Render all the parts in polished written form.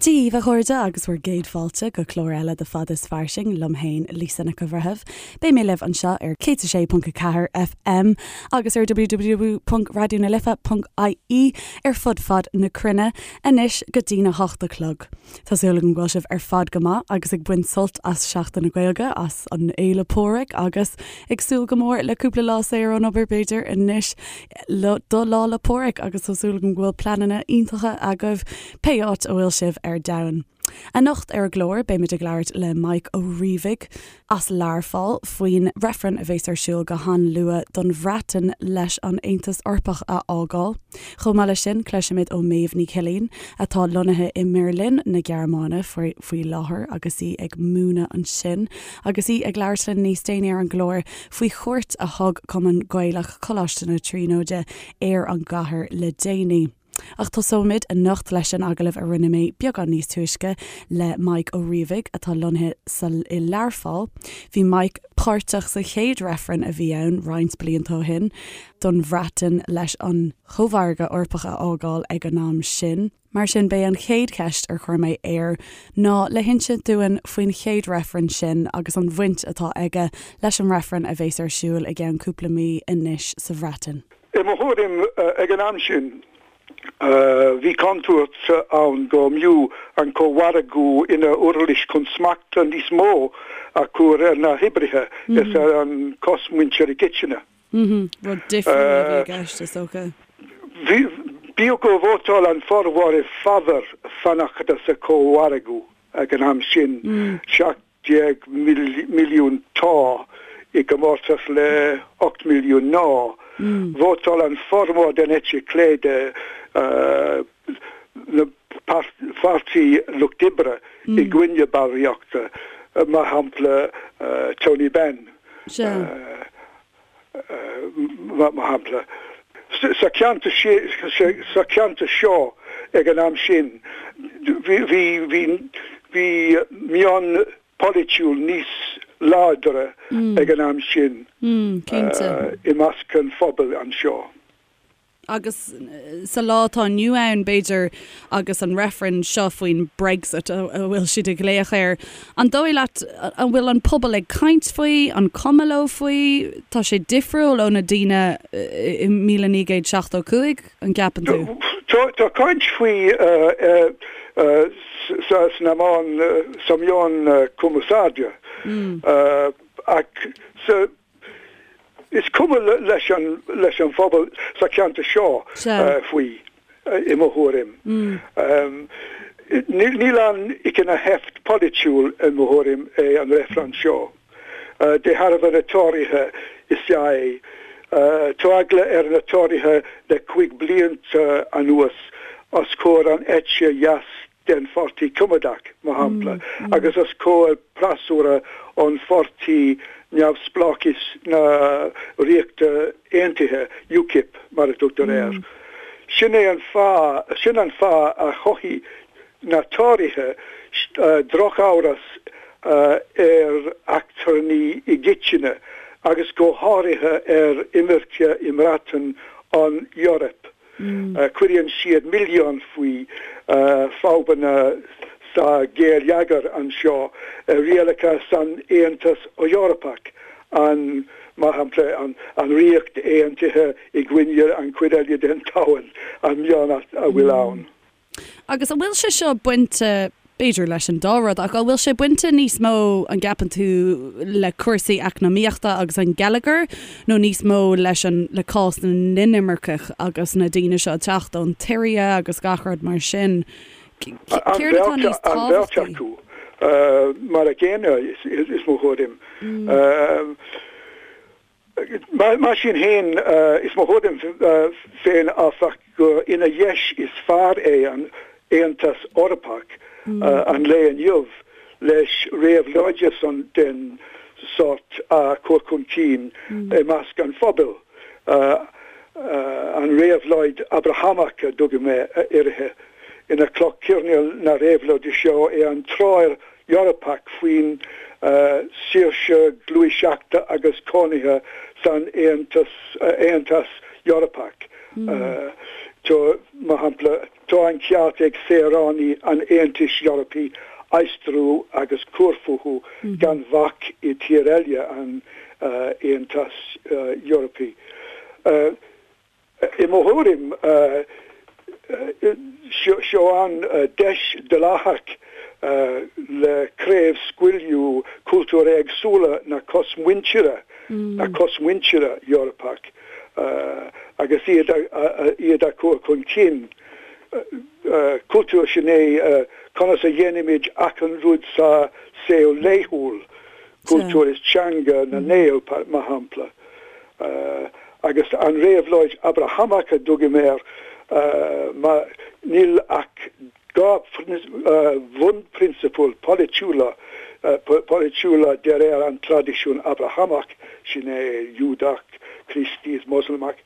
Dia dhaoibh a chairde agus bhur gcéad fáilte go clár eile de Fad is Fairsing liom féin, Lisa Nic an Bhreithimh. Beidh mé libh anseo ar 106.4 FM agus ar www.raidionalife.ie ar fud fad na cruinne anois go dtína hocht a chlog. Tá súil agam go bhfuil sibh ar fad go maith agus ag baint sult as Seachtain na Gaeilge, as an Fhéile Pádraig agus ag súil go mór le cúpla lá saor ón obair b'fhéidir anois do Lá 'le Pádraig agus tá súil agam go bhfuil pleananna iontacha agaibh pé áit a bhfuil sibh ar domhan. Anocht ar an gclár beimid ag labhairt le Mike Ó Riabhaigh as Learpholl faoin reifreann a bhéas ar siúl go han-luath don Bhreatain leis an Aontas Eorpach a fhágáil. Chomh maith leis sin cloisfimid ó Méabh Ní Chillín atá lonnaithe i mBeirlin na Gearmáine faoi láthair agus í ag múineadh ansin agus í ag labhairt linn níos déanaí ar an gclár faoi chuairt a thug Cumann Gaelach Choláiste na Tríonóide ar an gcathair le déanaí. Ach tosóimid anocht leis an agallamh a rinne mé beagán níos túisce le Mike Ó Riabhaigh, atá lonnaithe sa i Learpholl. Bhí Mike páirteach sa chéad reifreann a bhí ann roinnt blianta ó shin don Bhreatain leis an Chómhargadh Eorpach a fhágáil ag an am sin. Mar sin, b'é an chéad cheist ar chuir mé air ná le hinsint dúinn faoin chéad reifreann sin agus an bhaint atá aige leis an reifreann a bhéas ar siúl i gceann cúpla mí anois sa Bhreatain. I mo thuairim, ag an am sin, bhí contúirt ann go mb'fhiú an cómhargadh ina uirlis chun smacht níos mó a chur ar na hoibrithe is ar an chosmhuintir i gcoitinne. Rud difriúil a bhí i gceist, is dócha. Bíodh gur vótáil an formhór i bhfabhar fanacht sa chómhargadh ag an am sin, 17 milliún 'tá' i gcomórtas le 8 milliún 'ná', vótáil an formhór den eite chlé de na Pháirtí Lucht Oibre i gcoinne ballraíochta, mar shampla Tony Benn. Mar shampla, sa cheantar sa cheantar seo ag an am sin, bhí bhí meon polaitiúil níos láidre ag an am sin i measc an phobail anseo. Agus sa lá atá inniu ann, b'fhéidir, agus an reifreann seo faoin Brexit a bhfuil siad ag glaoch air, an dóigh leat an bhfuil an pobal ag caint faoi, an cuma leo faoi? Tá sé difriúil ó na daoine i 1975, an gceapann tú? Tá caint faoi sna meáin, sa meán cumarsáide ach sa Is cuma leis an leis an phobal sa cheantar seo faoi, i mo thuairim. Níl ann ach ina sheift polaitiúil, i mo thuairim, é an reifreann seo. De thairbhe na Tóraithe is ea é. Tá eagla ar na Tóraithe le 5 blianta anuas os comhair an eite dheas den Pháirtí Coimeádach, mar shampla, agus os comhair freasúra an Pháirtí Neamhspleáchais na Ríochta Aontaithe, UKIP mar a tugtar air. Sin é an fáth, sin an fáth a chothaigh na Tóraithe drochamhras ar eachtrannaigh i gcoitinne agus go háirithe ar imirce i mBreatain ón Eoraip. Cuireann siad milleán faoi fadhbanna sa gheilleagar anseo, rialacha san Aontas Eorpach, an, mar shampla, an Ríocht Aontaithe i gcoinne an chuid eile den domhan, an meon a bhfuil ann. Agus an bhfuil sé seo bainte, b'fhéidir leis an dá rud, ach an bhfuil sé bainte níos mó, an gceapann tú, le cúrsaí eacnamaíochta agus an geilleagar nó níos mó leis an, le cás na n-inimirceach agus na daoine seo ag teacht ón tSiria agus gach rud mar sin? Céard atá níos tábhachtaí? An bheirt acu, mar a gcéanna, is mo thuairim. Mar sin féin, is mo thuairim féin, áfach, gur ina dheis is fearr é an Aontas Eorpach an lae inniu leis réabhlóid den sórt a chur chun cinn i measc an phobail, an réabhlóid Abrahamach a dtugaim uirthi. Ina cloch choirnéil na réabhlóide seo é an treoir Eorpach faoin saoirse gluaiseachta agus cónaithe san Aontas Eorpach. Tá, mar shampla. Tá an ceart ag saoránaigh an Aontais Eorpaigh aistriú agus cur fúthu gan bhac i tír eile an Aontais Eorpaigh. I mo thuairim, seo an deis dleathach le craobhscaoileadh cultúir éagsúla na cosmhuintire, na cosmhuintire Eorpach agus iad iad a chur chun cinn. Cultúr sin é conas a dhéanaimid achan rud sa saol laethúil, cultúr is teanga na nGael, mar shampla. Agus an réabhlóid Abrahamach a dtugaim air, mar níl ach 2 bhunphrionsabal polaitiúla polaitiúla de réir an traidisiún Abrahamach, sin é Iúdach, Críostaí is Moslamach.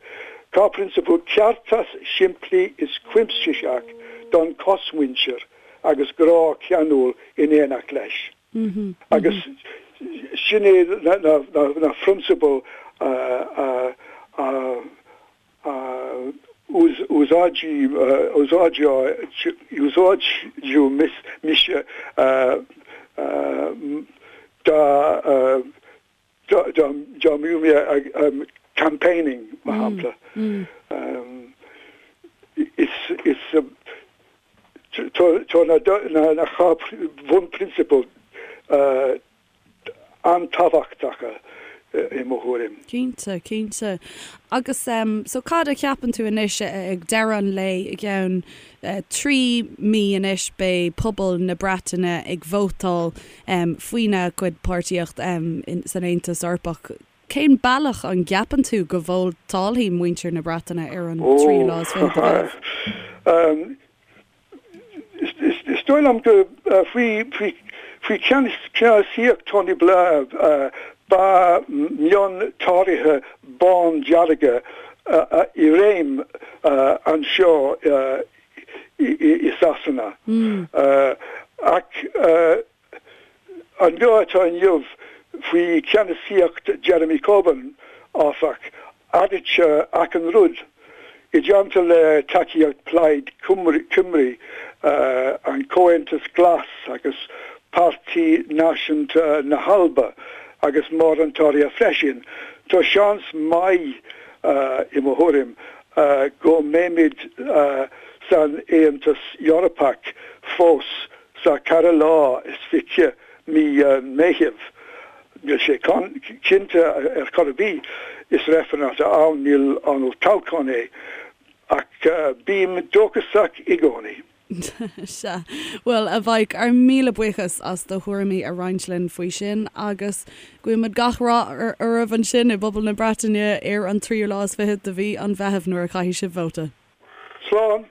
2 phrionsabal, ceartas simplí is cuimsitheach don chosmhuintir agus grá ceanúil in éineacht leis. Agus sin é na phrionsabail a úsáideadh mise dá dá mbeadh mé ag campaigning, mar shampla. Is tá na 2 bhunphrionsabal an-tábhachtacha i mo thuairim. Cinnte, cinnte. Agus so cad a cheapann tú anois ag deireadh an lae, i gceann 3 mí anois beidh pobal na Breataine ag vótáil faoina gcuid páirtíocht san Aontas Eorpach. Cén bealach an gceapann tú go vótálfaidh muintir na Breataine ar an tríú lá is fiche de Mheitheamh? Is dóigh liom go faoi cheannasaíocht Tony Blair ba meon Tóraithe bándearga i réim anseo i Sasana. Ach An lá atá inniu, faoi cheannasaíocht Jeremy Corbyn, áfach, athraítear achan rud. I dteannta le tacaíocht Plaid Cymru, an Comhaontas Glas agus Páirtí Náisiúnta na hAlba agus mórán Tóraithe freisin, tá seans maith, i mo thuairim, go mbeimid san Aontas Eorpach fós Sa 24 lá mí Meitheamh, níl sé cinnte ar chor ar bith, is reifreann atá ann, níl an olltoghchán é, ach bím dóchasach i gcónaí. Sea. Bhuel, a Mhaidhc, ár míle buíochas as do thuairimí a roinnt linn faoi sin agus guímid gach rath oraibh ansin i bpobal na Breataine ar an tríú lá is fichead de mhí an Mheithimh nuair a chaithfidh sibh vóta. Slán!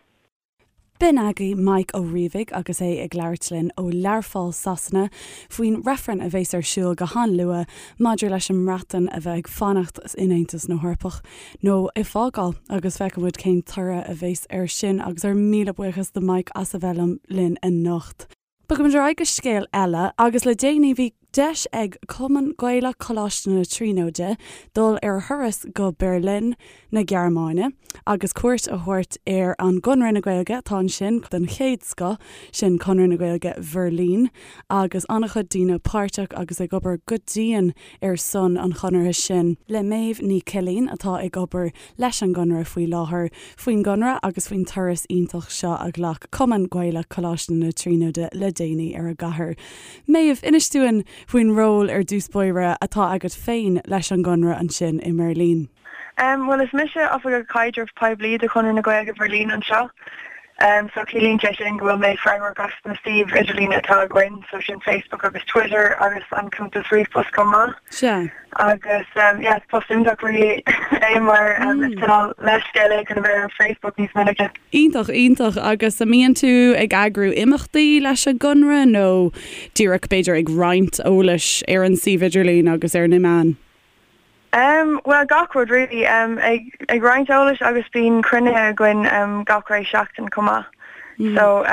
B'in agaibh Maidhc Ó Riabhaigh agus é ag labhairt linn ó Learpholl, Sasana, faoin reifreann a bheas ar siúl go han-luath maidir leis an mBreatain a bheith ag fanacht in Aontas na hEorpach nó ag fágáil agus feicfidh muid cén toradh a bheas air sin agus ár míle buíochas do Mike as a bheith linn anocht. Bogfaimid ar aghaidh go scéal eile agus le déanaí bhí deis ag Cumann Gaelach Choláiste na Tríonóide dul ar thuras go Beirlin na Gearmáine agus cuairt a thabhairt ar an gConradh na Gaeilge atá ansin den chéad scoth, sin Conradh na Gaeilge Bheirlín agus an-chuid daoine páirteach agus ag obair go dian ar son an chonartha sin. Le Méabh Ní Chillín atá ag obair leis an gConradh faoi láthair, faoin gConradh agus faoin turas iontach seo a ghlac Cumann Gaelach Choláiste na Tríonóide le déanaí ar an gcathair. Méabh, inis dúinn faoin ról ar dtús báire atá agat féin leis an gConradh ansin i mBeirlín. Bhuel, is mise Oifigeach Caidrimh Poiblí do Chonradh na Gaeilge Bheirlín anseo. So ciallaíonn sé sin go bhfuil mé freagrach as na suímh idirlín atá againn, so sin Facebook agus Twitter agus an cuntas ríomhphost chomh maith. Sea. Agus yeah, is post iontach really é mar is cineál leithscéal é chun a bheith ar Facebook níos minice. Iontach, iontach. Agus an mbíonn tú ag eagrú imeachtaí leis an gConradh nó díreach b'fhéidir ag roinnt eolais ar an suíomh idirlín agus ar na meáin? Em, bhuel gach rud really. Em, ag, ag roinnt eolais agus bíonn cruinnithe againn em gach ré seachtain chomh maith. So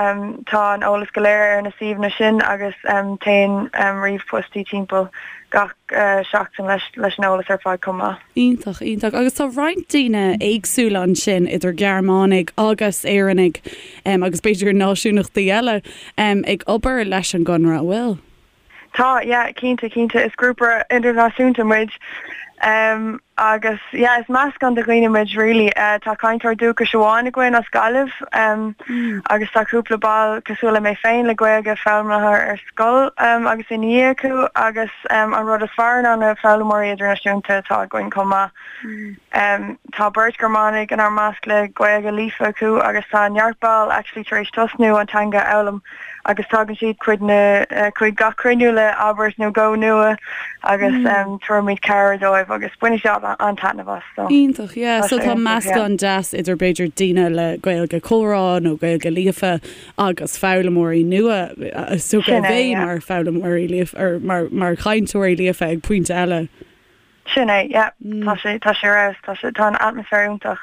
tá an eolas go léir ar na suíomhanna sin agus téann ríomhphostaí timpeall gach seachtain leis leis an eolas ar fad chomh maith. Iontach, iontach. Agus tá roinnt daoine éagsúla ansin, idir Gearmánaigh agus Éireannaigh agus b'fhéidir náisiúnachtaí eile, ag obair leis an gConradh, an bhfuil? Tá, yeah, cinnte, cinnte. Is grúpa idirnáisiúnta muid agus yeah, is meascán de dhaoine muid really. Tá cainteoir dúchais amháin againn as Gaillimh agus tá cúpla ball cosúil le mé féin le Gaeilge foghlamtha ar scoil agus ina dhiaidh acu agus an rud is fearr ná na foghlaimeoirí idirnáisiúnta atá againn chomh maith. Tá beirt Ghearmánaigh inár measc le Gaeilge líofa acu agus tá neart ball actually tar éis tosnú an teanga a fhoghlaim agus tagann siad chuig na chuig gach cruinniú le abairt nó dhó nua agus tabhairimid cabhair dóibh agus baineann siad an-taitneamh as so. Iontach, yeah. So tá meascán deas idir b'fhéidir daoine le Gaeilge comhrá nó Gaeilge líofa agus foghlaimeoirí nua is dócha a bheidh mar foghlaimeoirí líofa or mar mar chainteoirí líofa ag pointe eile. Sin é, yeah. Tá sé, tá sé ar fheabhas, tá sé, tá an atmaisféar iontach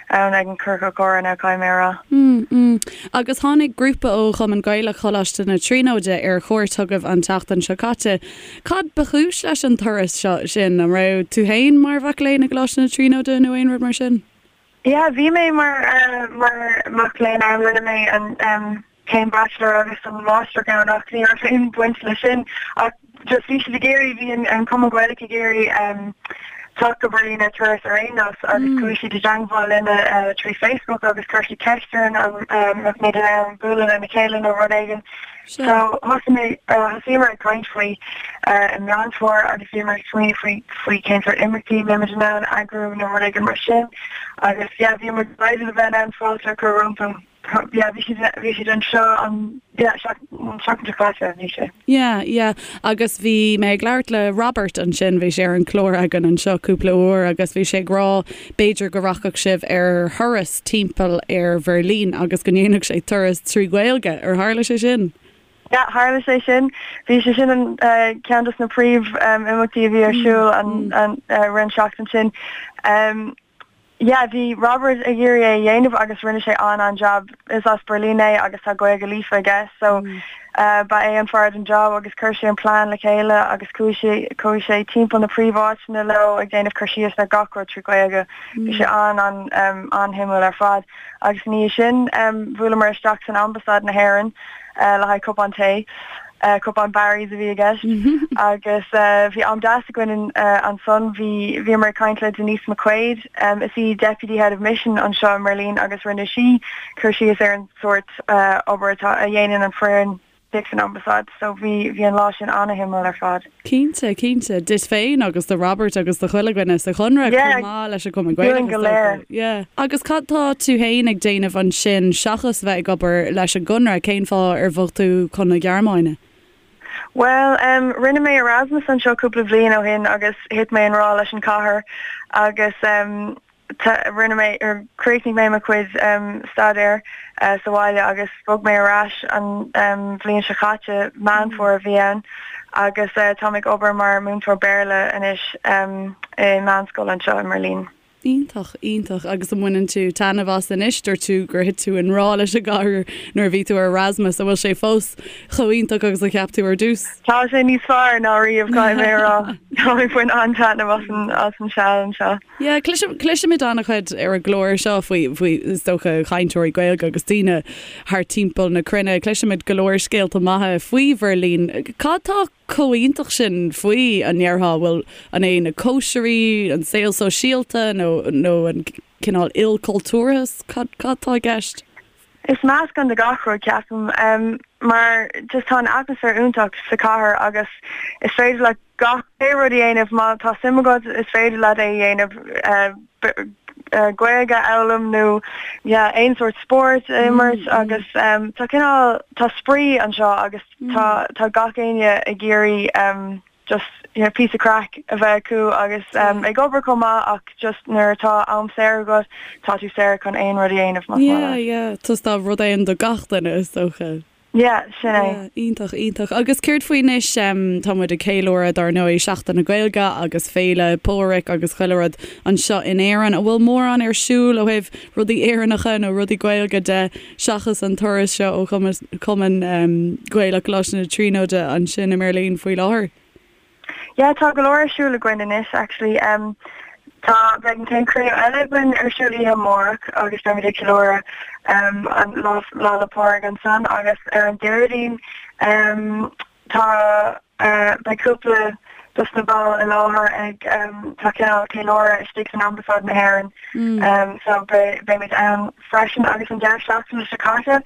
ann ag an Ciorcal Comhrá now, caithfidh mé a rá. Mm, mm. Agus tháinig grúpa ó Chumann Gaelach Choláiste na Tríonóide ar chuairt chugaibh an tseachtain seo caite. Cad ba chúis leis an turas seo sin? An raibh tú féin mar mhac léinn i gColáiste na Tríonóide nó aon rud mar sin? Yeah, bhí mé mar, mar mac léinn ann, rinne mé an, céim bachelor agus an máistreacht ann ach ní raibh aon bhaint leis sin ach just bhí siad ag iarraidh, bhí an Cumann Gaelach ag iarraidh teacht go Berlin ar turas ar aon nós agus chuaigh siad i dteangmháil linne trí Facebook agus chuir siad ceist orainn an mbeadh muid in ann bualadh lena chéile nó rud éigin. So thosaigh mé, thosaíomar ag caint faoi i Meán Fómhair agus bhíomar ag smaoineamh faoi faoi cén sórt imeachtaí a mbeimid in ann eagrú nó rud éigin mar sin agus yeah bhíomar delighted a bheith in ann fáilte a chur rompu. Yeah, bhí siad, bhí siad anseo an, yeah, an seachtain seo caite, bhí sé. Yeah, yeah. Agus bhí mé ag labhairt le Robert ansin, bhí sé ar an chlár againn anseo cúpla uair agus bhí sé ag rá b'fhéidir go rachadh sibh ar thuras timpeall ar Bheirlín agus go ndéanfadh sé turas trí Ghaeilge. Ar tharla sé sin? Yeah, tharla sé sin. Bhí sé sin an ceann dos na príomh imeachtaí a bhí ar siúl an, an, rith an seachtain sin. Yeah, bhí Robert ag iarraidh é a dhéanamh agus rinne sé an-an-jab. Is as Berlin é agus tá Gaeilge líofa aige so ba é an fear don job agus chuir sé an plean le chéile agus chuaigh sé chuaigh sé timpeall na príomháiteanna leo ag déanamh cur síos ar gach rud trí Ghaeilge. Bhí sé an-an an-shuimiúil ar fad. Agus ina dhiaidh sin bhuaileamar isteach san Ambasáid na hÉireann le haghaidh cupán tae. Cupán Barry's a bhí i gceist agus bhí am deas againn ansan. Bhí bhíomar ag caint le Denise McQuaid, is í Deputy Head of Mission anseo i mBerlin agus rinne sí cur síos ar an sórt obair atá a dhéanann an foireann istigh san Ambasáid. So bhí bhí an lá sin ana-shuimiúil ar fad. Cinnte, cinnte. Duit féin agus do Robert agus do chuile dhuine sa Chonradh chomh maith leis an Chumann Gaelach is dócha. Yeah. Agus cad tá tú féin ag déanamh ansin seachas bheith ag obair leis an gConradh? Cén fáth ar bhog tú chun na Gearmáine? Bhuel, em, rinne mé Erasmus anseo cúpla bliain ó shin agus thit mé i ngrá leis an chathair agus, em, rinne mé, chríochnaigh mé mo chuid staidéir sa bhaile agus bhog mé ar ais an bhliain seo chaite, Meán Fómhair a bhí ann, agus táim ag obair mar mhúinteoir Béarla anois i meánscoil anseo i mBeirlín. Iontach, iontach. Agus an mbaineann tú taitneamh as anois? Dúirt tú gur thit tú i ngrá leis an gcathair nuair a bhí tú ar Erasmus. An bhfuil sé fós chomh iontach agus a cheap tú ar dtús? Tá sé níos fearr ná riamh, caithfidh mé a rá. Táim ag baint an-taitneamh as an as an seal anseo. Yeah, cloisimid an-chuid ar an gclár seo faoi, faoi, is dócha, chainteoirí Gaeilge agus daoine thar timpeall na cruinne. Cloisimid go leor scéalta maithe faoi Bheirlín. Cad tá chomh iontach sin faoi, an ndéarfá? Bhfuil, an é na cóisirí, an saol sóisialta nó, nó an cineál ilchultúrthas? Cad, cad tá i gceist? Is meascán de gach rud, ceapaim, mar just tá an atmaisféar iontach sa chathair agus is féidir leat gach pé rud a dhéanamh má tá suim agat, is féidir leat é a dhéanamh, Gaeilge a fhoghlaim nó yeah aon sórt spórt a imirt agus tá cineál, tá spraoi anseo agus tá tá gach éinne ag iarraidh just you know píosa craic a bheith acu agus ag obair chomh maith ach just nuair atá am saor agat tá tú saor chun aon rud a dhéanamh más maith leat. Yeah, yeah, tá rud éigin do gach duine is dócha. Yeah, sin é. Yeah, iontach, iontach. Agus céard faoi anois, tá muid ag ceiliúradh dar ndóigh Seachtain na Gaeilge agus Féile Pádraig agus chuile rud anseo in Éirinn. An bhfuil mórán ar siúl ó thaobh rudaí Éireannacha nó rudaí Gaeilge de seachas an turas seo ó Chumann Gaelach Choláiste na Tríonóide ansin i mBeirlín faoi láthair? Yeah, tá go leor ar siúl againn anois actually. Um, tá, beidh an chéad chruinniú eile againn ar siúl oíche amárach agus beimid ag ceiliúradh um, an Lá, Lá 'le Pádraig ansan agus ar an Déardaoin um, tá, uh, beidh cúpla dos na baill i láthair ag um, tá cineál ceiliúradh istigh san Ambasáid na hÉireann mm. um, so be, beimid ann freisin agus an deireadh seachtaine seo caite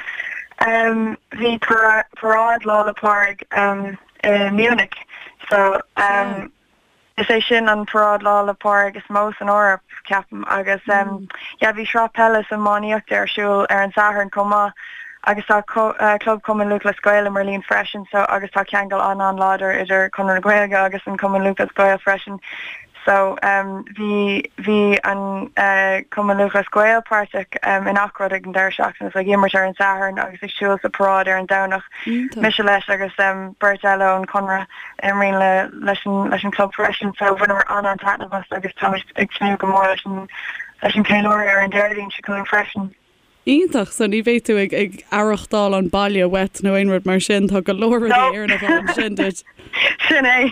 um, bhí paráid Lá 'le Pádraig um, i Munich. So um is é sin an paráid Lá 'le Pádraig is mó san Eoraip, ceapaim, agus um yeah bhí sraith peile is iománaíochta ar siúl ar an Satharn chomh maith agus tá Club Chumann Lúthchleas Gael i mBeirlín freisin so agus tá ceangal an-an-láidir idir Conradh na Gaeilge agus an Cumann Lúthchleas Gael freisin. So bhí, bhí an Cumann Lúthchleas Gael páirteach i ngach rud ag an deireadh seachtaine, so ag imirt ar an Satharn agus ag siúl sa paráid ar an Domhnach. Mise leis agus beirt eile ón Chonradh a imríonn le, leis an, leis an club freisin. So bhaineamar an-an-taitneamh as agus táimid ag tnúth go mór leis an, leis an cheiliúradh ar an Déardaoin seo chugainn freisin. Iontach, so ní bheidh tú ag, ag aireachtáil an baile uait nó aon rud mar sin, tá go leor rudaí Éireannacha ansin duit. Sin é.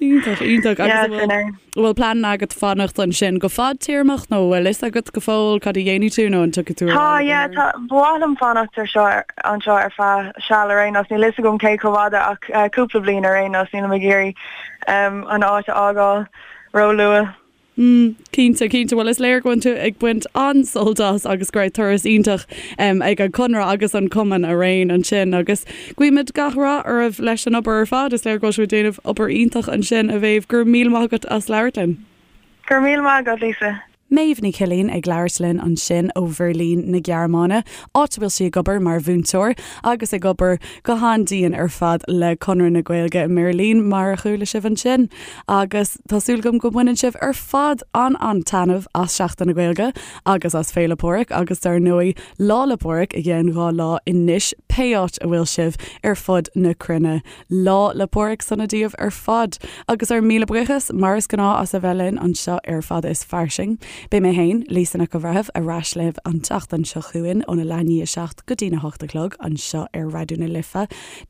Iontach, iontach. Agus an bhfuil, an bhfuil plean agat fanacht ansin go fadtéarmach nó an bhfuil fhios agat go fóill cad a dhéanfaidh tú nó an dtiocfaidh tú ar Tá, yeah, tá, ba mhaith liom fanacht ar seo, anseo ar feadh seal ar aon nós. Níl fhios agam cé chomh fada ach cúpla bliain ar aon nós. Nílim ag iarraidh an áit a fhágáil ró-luath. Mm, cinnte, cinnte. Bhuel, is léir go bhfuil tú ag baint an-sult as agus go raibh turas iontach ag an Chonradh agus an Cumann araon ansin agus guímid gach rath oraibh leis an obair ar fad. Is léir go bhfuil sibh ag déanamh obair iontach ansin, a Mhéabh. Go raibh míle maith agat as labhairt linn. Go raibh míle maith agat, Lisa. Méabh Ní Chillín ag labhairt linn ansin ó Bheirlín na Gearmáine, áit a bhfuil sí ag obair mar mhúinteoir agus ag obair go han-dian ar fad le Conradh na Gaeilge i mBeirlín, mar a chuala sibh ansin. Agus tá súil agam go mbaineann sibh ar fad an-an-taitneamh as Seachtain na Gaeilge agus as Féile Pádraig agus dar ndóigh Lá 'le Pádraig i gceann 2 lá anois, pé áit a bhfuil sibh ar fud na cruinne. Lá 'le Pádraig sona daoibh ar fad! Agus ár míle buíochas, mar is gnáth, as a bheith linn anseo ar Fada is Fairsing. Beidh mé féin, Lisa Nic an Bhreithimh, ar ais libh an tseachtain seo chugainn óna leath i ndiaidh a 7 go dtína hocht a chlog anseo ar Raidió na Life,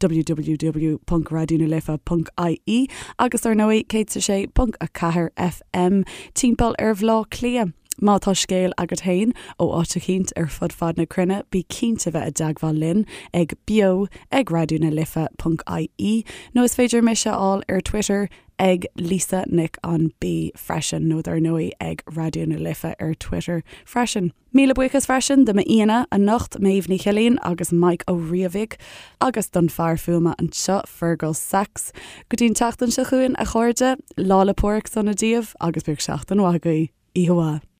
www.raidionalife.ie agus ar ndóigh 106.4 FM timpeall ar Bhleá Cliath. Má tá scéal agat féin ó áit eicínt ar fud fad na cruinne, bí cinnte bheith i dteagmháil linn ag beo ag raidionalife.ie nó is féidir mise a fháil ar Twitter ag Lisa Nic an B freisin nó dar ndóigh ag Raidió na Life ar Twitter freisin. Míle buíochas freisin do m'aíonna anocht, Méabh Ní Chillín agus Mike Ó Riabhaigh, agus don fear fuaime anseo, Fergal Sachs. Go dtí an tseachtain seo chugainn, a chairde, Lá 'le Pádraig sona daoibh agus bíodh seachtain mhaith agaibh. Oíche mhaith.